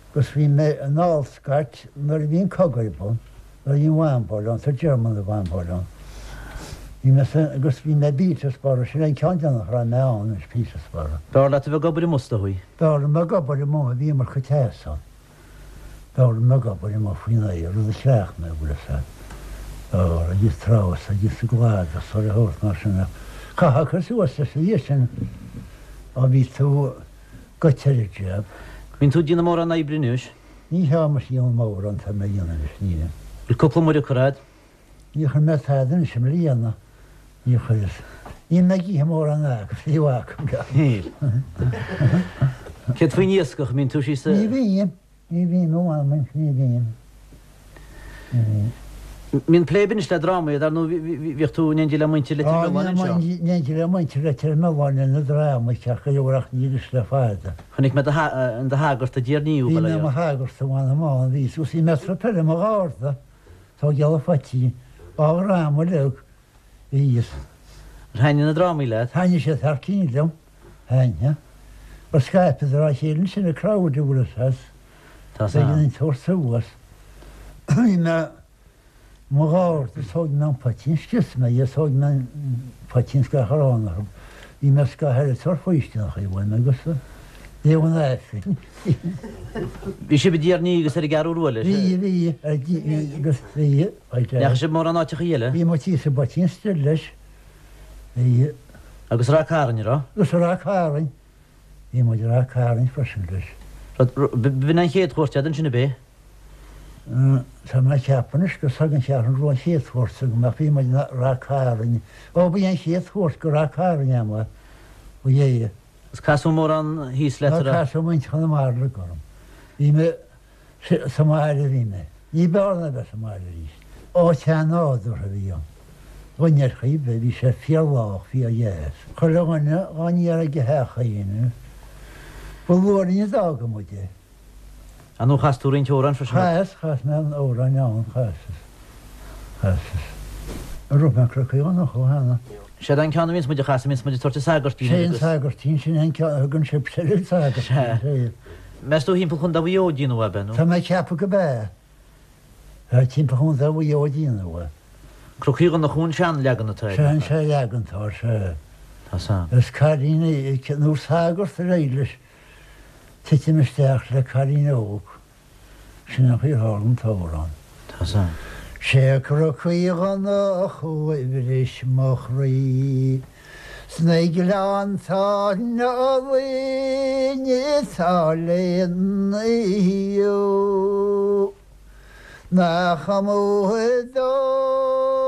agus bhí mé in Allscott nuair a bhí an cogadh ar bun, nuair a bhí an bhumbáil ann, sa German a bhumbáil ann. Bhí mé sa, agus bhí mé i bPetersborough, sin é an ceann deireanach a raibh mé ann, anois Petersborough. B'fhearr leat a bheith ag obair amuigh is dóigh? B'fhearr liom ag obair amuigh, bhí iomarca teas ann. B'fhearr liom ag obair amuigh faoin aer, rud a chleacht mé, bhfuil fhios a'd. B'fhearr, agus tráth agus sa gcladach is a shórt mar sin ach chaithfeá cur suas leis an dhiaidh sin á bhí tú goite ar an jab. Bíonn tú ag déanamh mórán oibre anois. Ní hea mise a dhéanamh mórán tá mé a dhéanamh anois, nílim. Bhfuil cúpla muire curtha a'd? Níor chuir mé tada anois i mbliana, níor chuireas. Níl mé ag ithe mórán acu, fiú acu. Níl. Céard faoin iascach, an mbíonn tú síos sa. Ní bhím, ní bhím, ó mh'anam anois, ní bhím. Ní bhím. Mbíonn plé anois le drámaí, dar ndóigh bhíodh tú in éindí le muintir Leitir Mealláin anseo. Á, bhí mé in éindí le muintir Leitir Mealláin le na drámaí ceart go leor ach ní anois le fada. Chonaic mé in do shagart i dTír Níú, Bhí mé i mo shagart, a mh'anam ann, bhí, agus bhí mé ag troid i mo gharda. Tógáil an phoitín, á dhráma uilig, bhíos. Ar thaitnigh na drámaí leat? Thaitnigh siad thar cinn liom, thaitnigh. Gur scaipeadar á chéile ansin an crowd a bhfuil fhios agat. Tá san. B'éigean tabhairt suas. Bhí mé i mo gharda, thóg mé an poitín, scrios mé é, thóg mé an poitín is gach arán orthu. Bhí mé scaitheamh eile ag tabhairt faoistineacha uaim agus léamh an Aifrinn. Bhí sibh i dTír an Fhia agus ar an gCeathrú Rua leis? Bhí, bhí, ar agus bhí. Ndeachaigh sibh mórán áiteacha eile? Bhí muid thíos i bPoitín Stil leis. Bhí. Agus Ráth Cairn, raibh? Agus Ráth Cairn. Bhí muid i Ráth Cairn freisin leis. B'in an chéad chuairt agat ansin ab é? Tá mé ag ceapadh anois gur ag an Cheathrú Rua an chéad chuairt agam ach bhí muid i Ráth Cairn. Ó, ba í an chéad chuairt go Ráth Cairn agam é. Ba é. Is casadh mórán thíos leat, a raibh? Casadh muintir Chonamara uilig orm. Bhí mé sa mbaile a bhí mé. Ní b'fhearr ná bheith sa mbaile arís. Áit an-nádúrtha a bhí ann. Dhuine ar chaoi ar bith, bhí sé fíor-lách, fíor-dheas. Chuile dhuine dhá n-iarraidh ag a theach féin. Ba luath linn a d'fhága muid é. Ar ndóigh chas tú roinnt amhrán freisin. Chas, chas mé an amhráin ann, chasas, chasas. An raibh mé Cnoc Uí Dhonnchú cheana? Séard an ceann a bhíonns muid a chasadh, bhíonns muid ag tabhairt an sagairtín Sé an sagairtín, sin é an ceann a thugann sibhse ar an sagairtín, sé. Meas tú thimpeall Chontae Mhaigh Eo a déanadh ab ea nó? Tá mé ag ceapadh go b'ea. Tá timpeall Chontae Mhaigh Eo a déanadh é. Cnoc Uí Dhonnchú an seanleagan atá air. Sé an seanleagan atá air, sé. Tá san. Is cailín é, nó sagart ar éirigh leis. Titim isteach le cailín óg. Sin an chaoi ar tharla an t-amhrán. Tá san. Sé Cnoc Uí Dhonnchú a bhris mo chroí Sna gleannta álainn atá lena thaobh Nach amú dólás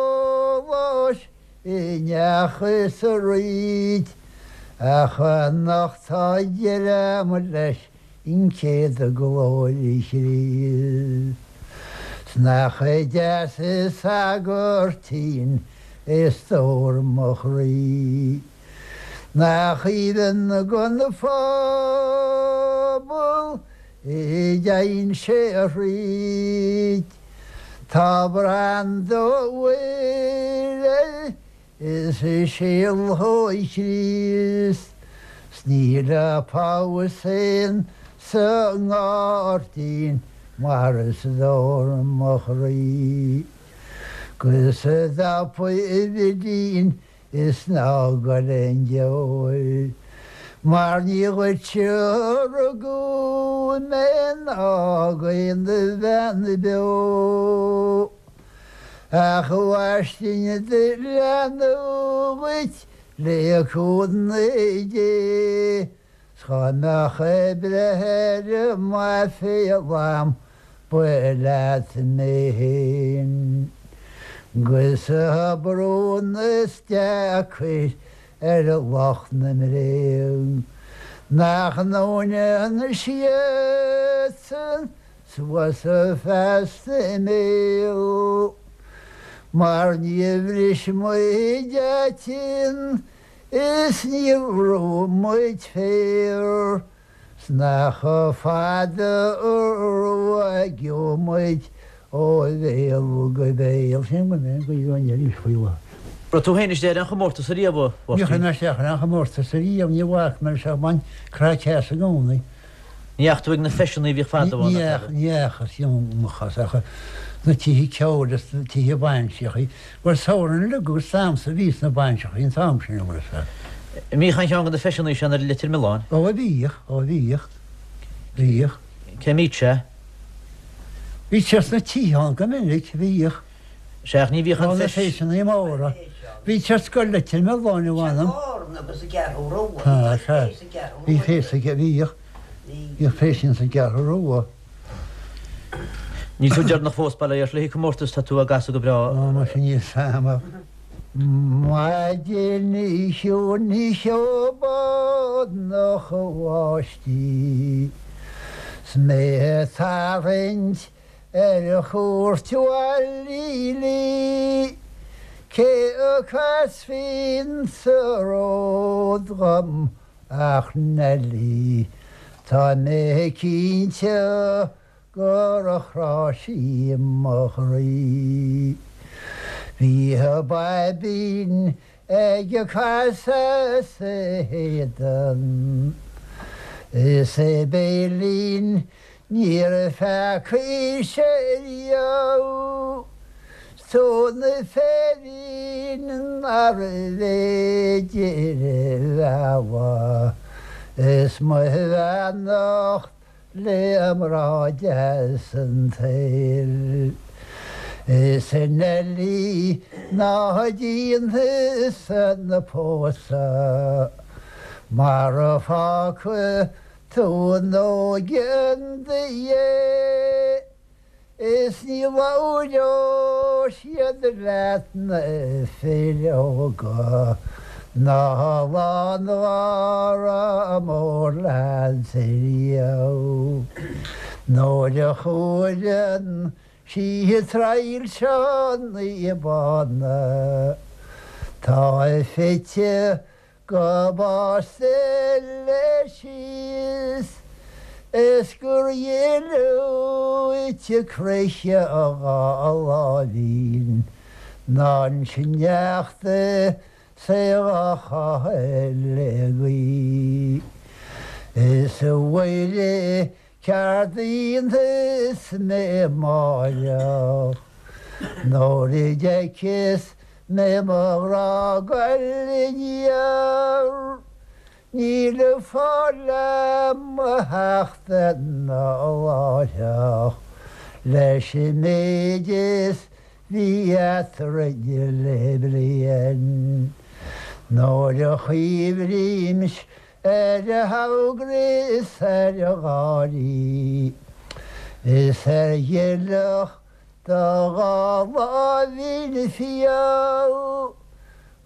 i ndeachthas arís ach anocht tá deireadh leis an chéad glóir Chríost. 'S nach deas an sagairtín é stór mo chroí. Nach aoibhinn gon phobal a dtéann sé thríd. Tá branda Mhuire is síol Chríost 's níl a phabhas féin sa ngairdín mar is dór mo chroí. 'Gus a dtapaidh a bhidín Is ná gol aon deoir. Mar ní dhuitse a rugadh mé ná d'aon bhean beo. Ach a mhaistín do leanbh dhuit le cúnamh Dé. 'S dhá mbeadh ag breith ar m'aiféala a'm ba leat mé fhéin. 'Gus tá brón is deacair ar lucht na mbréag nach ndúnann siadsan suas feasta a mbéal mar níor bhris muid aitinn Is níor bhrúigh muid féar 's nach fada a ruaigeadh muid ó bhéal go béal. Sin go mbeidh an ghaoth arís faoi láthair. Raibh tú féin istigh ar aon chomórtas ariamh, a Mháirtín? Níor chuir mé isteach ar aon chomórtas ariamh, ní bhfaca mé leis ach bhain craic as i gcónaí. Ní fheachaigh tú ag na feiseanna a bhíodh fadó ann, Ní fheachas, dheamhan ach sna tithe ceoil is sna tithe bainseachaí. Bhuel, samhradh uilig agus damhsa a bhí sna bainseachaí an t-am sin, an bhfuil fhios agat. An mbíodh aon cheann de na feiseanna sin ar Leitir Mealláin? Ó, bhíodh, ó bhíodh, bhíodh. Cé mbíodh sé? Bhí sé sna tithe ann go minic, bhíodh. Sea, ach ní bhíodh an feis. Ó, na feiseanna móra. Bhí sé ar scoil Leitir Mealláin, a mh'anam. Sea, bhí feis sa, bhíodh, bhíodh feiseanna sa gCeathrú Rua. Níl tú deireanach fós, bail ó Dhia ort, le haghaidh comórtas, tá tú á gcasadh go breá. Ó, muise níl 's a'm ach maidin chiúin cheobhránach bháistí 's mé ag tarraingt ar chuairt Bhaile Lí cé a chasfaí sa ród dhom ach Neilí tá mé cinnte gur chrá sí mo chroí. Bhí a baibín ag casadh as a héadan, is a béilín níor pheacaigh sé riamh, 's tóin na féirín nárbh fhéidir a mhealladh, is mo bheannacht le mná deas an tsaoil. Is a Neilí ná déan thusa an pósadh mar fágfaidh tú an óige in do dhiaidh is ní labhróidh siad leat na fir óga ná lán gháire mór leat riamh. Nuair a chuireann sí traidhilseanna bána tá fite go básta leis síos is gur dhlúite croiche a dhá láimhín ná an sneachta 's é dhá chaitheamh le gaoith. Is a Mhuire ceard a dhéanfas mé amáireach nuair a d'fheiceas mé mo ghrá goil aniar, níl fáil a'm a theacht anall láithreach leis an méid is bhí eatrainn le bliain. Nuair a chuimhrímse ar a hamhgra is ar a gháirí is ar ghileach do dhá láimhín fial, ó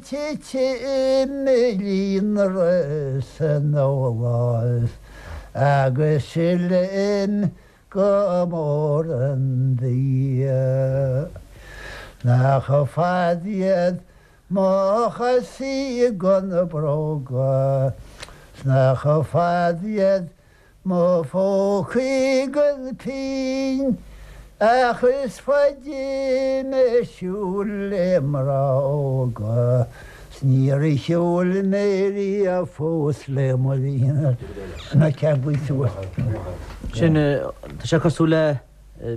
titim i líonrith san dólás agus silim go mór an bia. Nach fada iad Mo chosaí gan na bróga 's nach fada iad mo phócaí gan pingin ach is faide mé ag siúl le mná óga 's níor shiúil mé riamh fós le mo na ceanglaí suas. Sin, tá sé cosúil le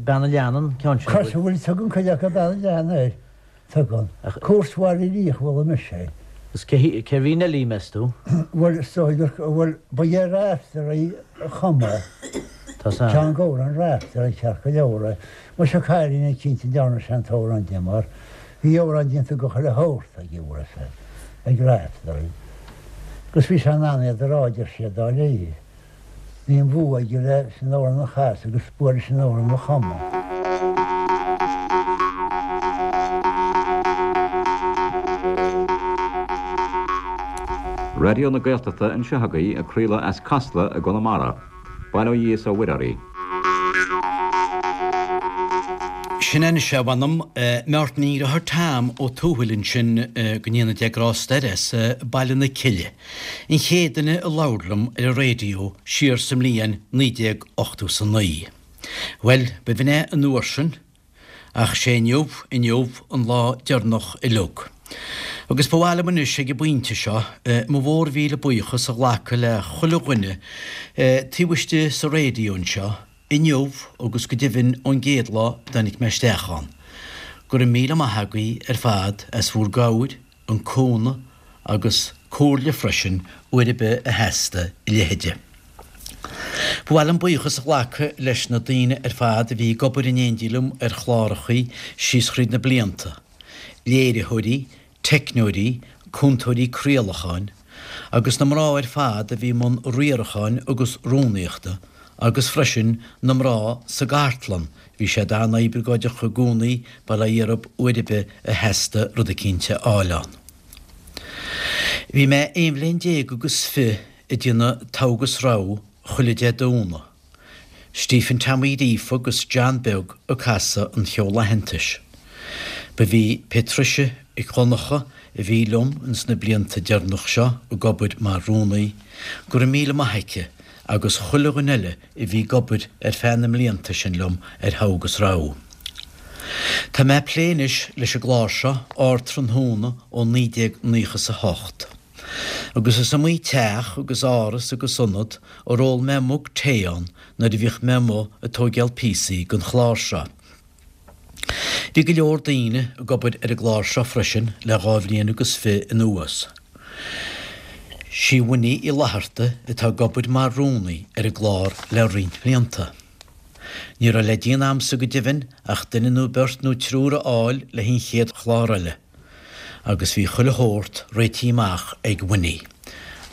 Bean an Leanna an ceann sin. Cosúil, tugann cuid acu Bean an Leanna air. Tugann. Cúirt Bhaile Liach a chuala mise é. Agus cérbh í Neilí, meas tú? Bhuel, is dóigh gur, bhuel, ba é Raiftearaí a chum é. Tá san. Ceann d'amhráin Raiftearaí ceart go leor é. Muise cailín eicínt a ndearna sé an t-amhrán di mar bhí amhráin déanta go chuile shórt aige, bhfuil fhios a'd, ag Raiftearaí. Agus bhí sé in ann iad a rá, deir siad, dáiríre. Bhí an bua aige leis an amhrán a chasadh agus bua leis an amhrán a chumadh. Raidió na Gaeltachta anseo agaibh ag craoladh as Casla i gConamara. Bail ó Dhia is ó Mhuire oraibh. Sin é anois é, mh'anam. Máirtín Deartháir Tom Ó Tuathail ansin, go ndéana Dia grásta air, as Baile na Cille. An chéad duine a labhair liom ar an raidió siar sa mbliain 1989. Bhuel, b'in é an uair sin, ach sé inniu, inniu, an lá deireanach uileag. Agus ba mhaith liom anois ag an bpointe seo, mo mhór mhíle buíochas a ghlacadh le chuile dhuine taobh istigh sa raidió anseo, inniu agus go deimhin ón gcéad lá a dtáinig mé isteach ann. Go raibh míle maith agaibh ar fad as bhur gcabhair, an cúnamh agus comhairle freisin uair ar bith a theastaigh a leithide. Ba mhaith liom buíochas a ghlacadh leis na daoine ar fad a bhí ag obair in éindí liom ar chlárachaí síos thríd na blianta, léiritheoirí, teicneoirí, cúntóirí craolacháin, agus na mná ar fad a bhí i mbun riaracháin agus rúnaíochta. Agus freisin na mná sa gcartlann, bhí siad an-oibleagáideach i gcónaí, bail ó Dhia orthub uair ar bith a theastaigh rud eicínt a fháil ann. Bhí mé aon bhliain déag agus fi' ag déanamh togha agus rogha chuile Dé Domhnaigh. Stephen Tom Uí Ghríofa agus John Beag ag casadh an cheoil aitheantais. Ba í Patricia Mhic Dhonncha a bhí liom ins na blianta deireanach seo ag obair mar rúnaí, go raibh míle maith aici agus chuile dhuine eile a bhí ag obair ar feadh na mblianta sin liom ar Thogha agus Rogha. Tá mé ag plé anois leis an gclár seo, Ardtráthnóna ó 1998. Agus is iomaí teach agus áras agus ionad ar ól mé mug tae ann nuair a bhíodh mé amuigh ag tóigeáil píosaí don chlár seo. Bhí go leor daoine ag obair ar an gclár seo freisin le dha bhliain agus fi' anuas. Sí Winnie Uí Fhlatharta atá ag obair mar rúnaí ar an gclár le roinnt blianta. Ní raibh le déanamh a'msa go deimhin ach duine nó beirt nó triúr a fháil le an chéad chlár eile. Agus bhí chuile shórt réitithe amach ag Winnie.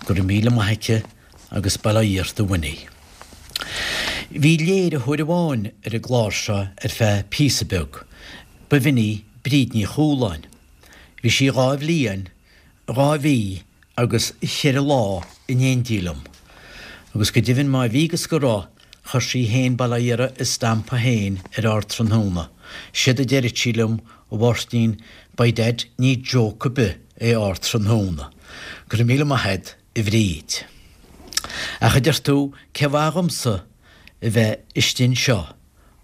Go raibh míle maith aici agus bail ó Dhia ort a Winnie. Bhí léiritheoir amháin ar an gclár seo ar feadh píosa beag, ba bh'in í Bríd Ní Chualáin. Bhí sí dha bhliain, dha mhí agus cheithre lá in éindí liom. Agus go deimhin má bhí agus go raibh, chuir sí fhéin, bail ó Dhia uirthi, a stampa fhéin ar Ardtráthnóna. Séard a deireadh sí liom, a Mháirtín, by dad ní joke ar bith é Ardtráthnóna. Go raibh míle maith a'd. a Bhríd. Ach a deir tú, cé mhaith dhomsa a bheith istigh anseo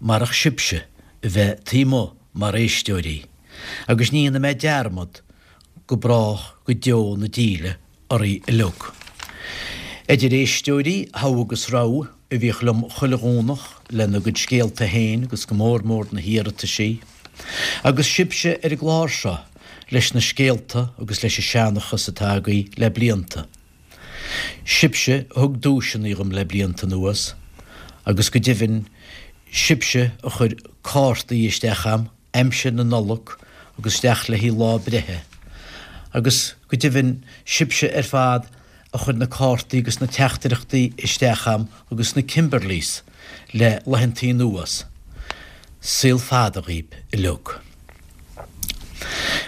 marach sibhse a bheith taobh amuigh mar éisteoirí, agus ní dhéanfaidh mé dearmad go brách go deo na díle oraibh uilig. Idir éisteoirí Thogha agus Rogha a bhíodh liom chuile Dhomhnach lena gcuid scéalta féin agus go mór mór na hiarrataisí, agus sibhse ar an gclár seo leis na scéalta agus leis an seanchas atá agaibh le blianta. Sibhse a thug duaiseanna dhom le blianta anuas, agus go deimhin, sibhse a chuir cártaí isteach a'm aimsir na Nollag agus isteach le haghaidh lá breithe, agus go deimhin, sibhse ar fad a chuir na cártaí agus na teachtaireachtaí isteach a'm agus na Kimberleys le laethantaí anuas. Saol fada dhaoib uilig.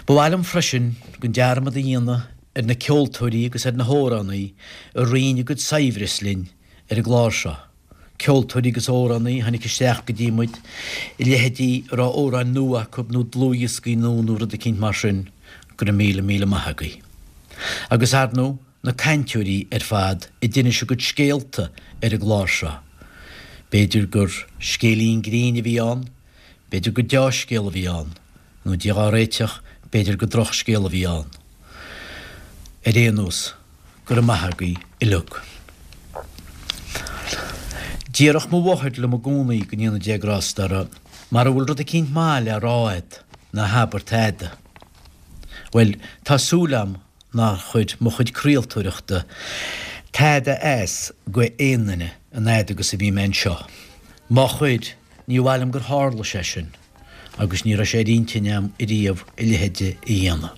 Ba mhaith liom freisin gan dearmad a dhéanamh ar na ceoltóirí agus ar na hamhránaí a roinn a gcuid saibhreas linn ar an gclár seo, ceoltóirí agus amhránaí a tháinig isteach go dtí muid, a leithéidí a raibh amhráin nua acu nó dlúthdhioscaí nua nó rud eicínt mar sin, go raibh míle míle maith agaibh. Agus ar ndóigh, na cainteoirí ar fad a d'inis a gcuid scéalta ar an gclár seo. B'fhéidir gur scéilín grinn a bhí ann, B'fhéidir gur deá-scéal a bhí ann, nó Dia dhá réiteach, b'fhéidir gur drochscéal a bhí ann. Ar aon nós, go raibh maith agaibh uilig. Déarfadh mo mháthair liom i gcónaí, go ndéana Dia grásta uirthi, mara bhfuil rud eicínt maith le rá a'd, ná habair tada. Bhuel, tá súil a'm nár chuir mo chuid craoltóireachta tada as go aon duine an fhad agus a bhí mé anseo. Má chuir, Ní mhaith liom gur tharla sé sin agus ní raibh sé ar intinn a'm ariamh a leithéide a dhéanamh.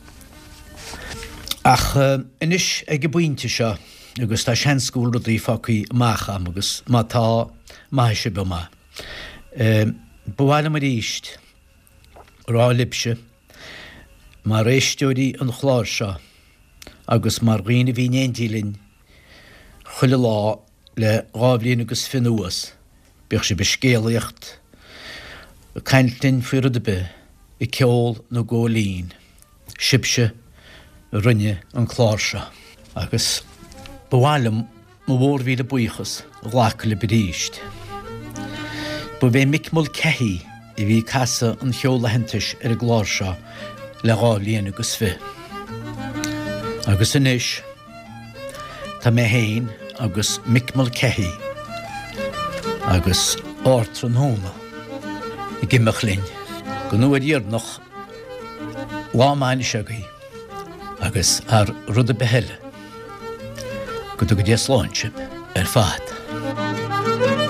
Ach anois ag an bpointe seo, agus tá seans go bhfuil rudaí fágtha amach a'm agus má tá, maithfidh sibh dom é, ba mhaith liom arís rá libhse, mar éisteoirí an chláir seo agus mar dhaoine a bhí in éindí linn chuile lá, Le dha bhliain agus fi' anuas, bíodh sibh ag scéalaíocht, ag caint linn faoi rud ar bith, ag ceol nó ag ól linn, sibhse a rinne an clár seo. Agus ba mhaith liom mo mhórmhíle buíochas a ghlacadh libh arís. Ba é Mick Mulcahy a bhí ag casadh an cheoil aitheantais ar an gclár seo le dha bhliain agus fi'. Agus anois. Tá mé féin agus Mick Mulcahy agus Ardtráthnóna ag imeacht linn don uair dheireanach, lá maith anois agaibh agus thar rud ar bith eile, go dtuga Dia slán sibh ar fad.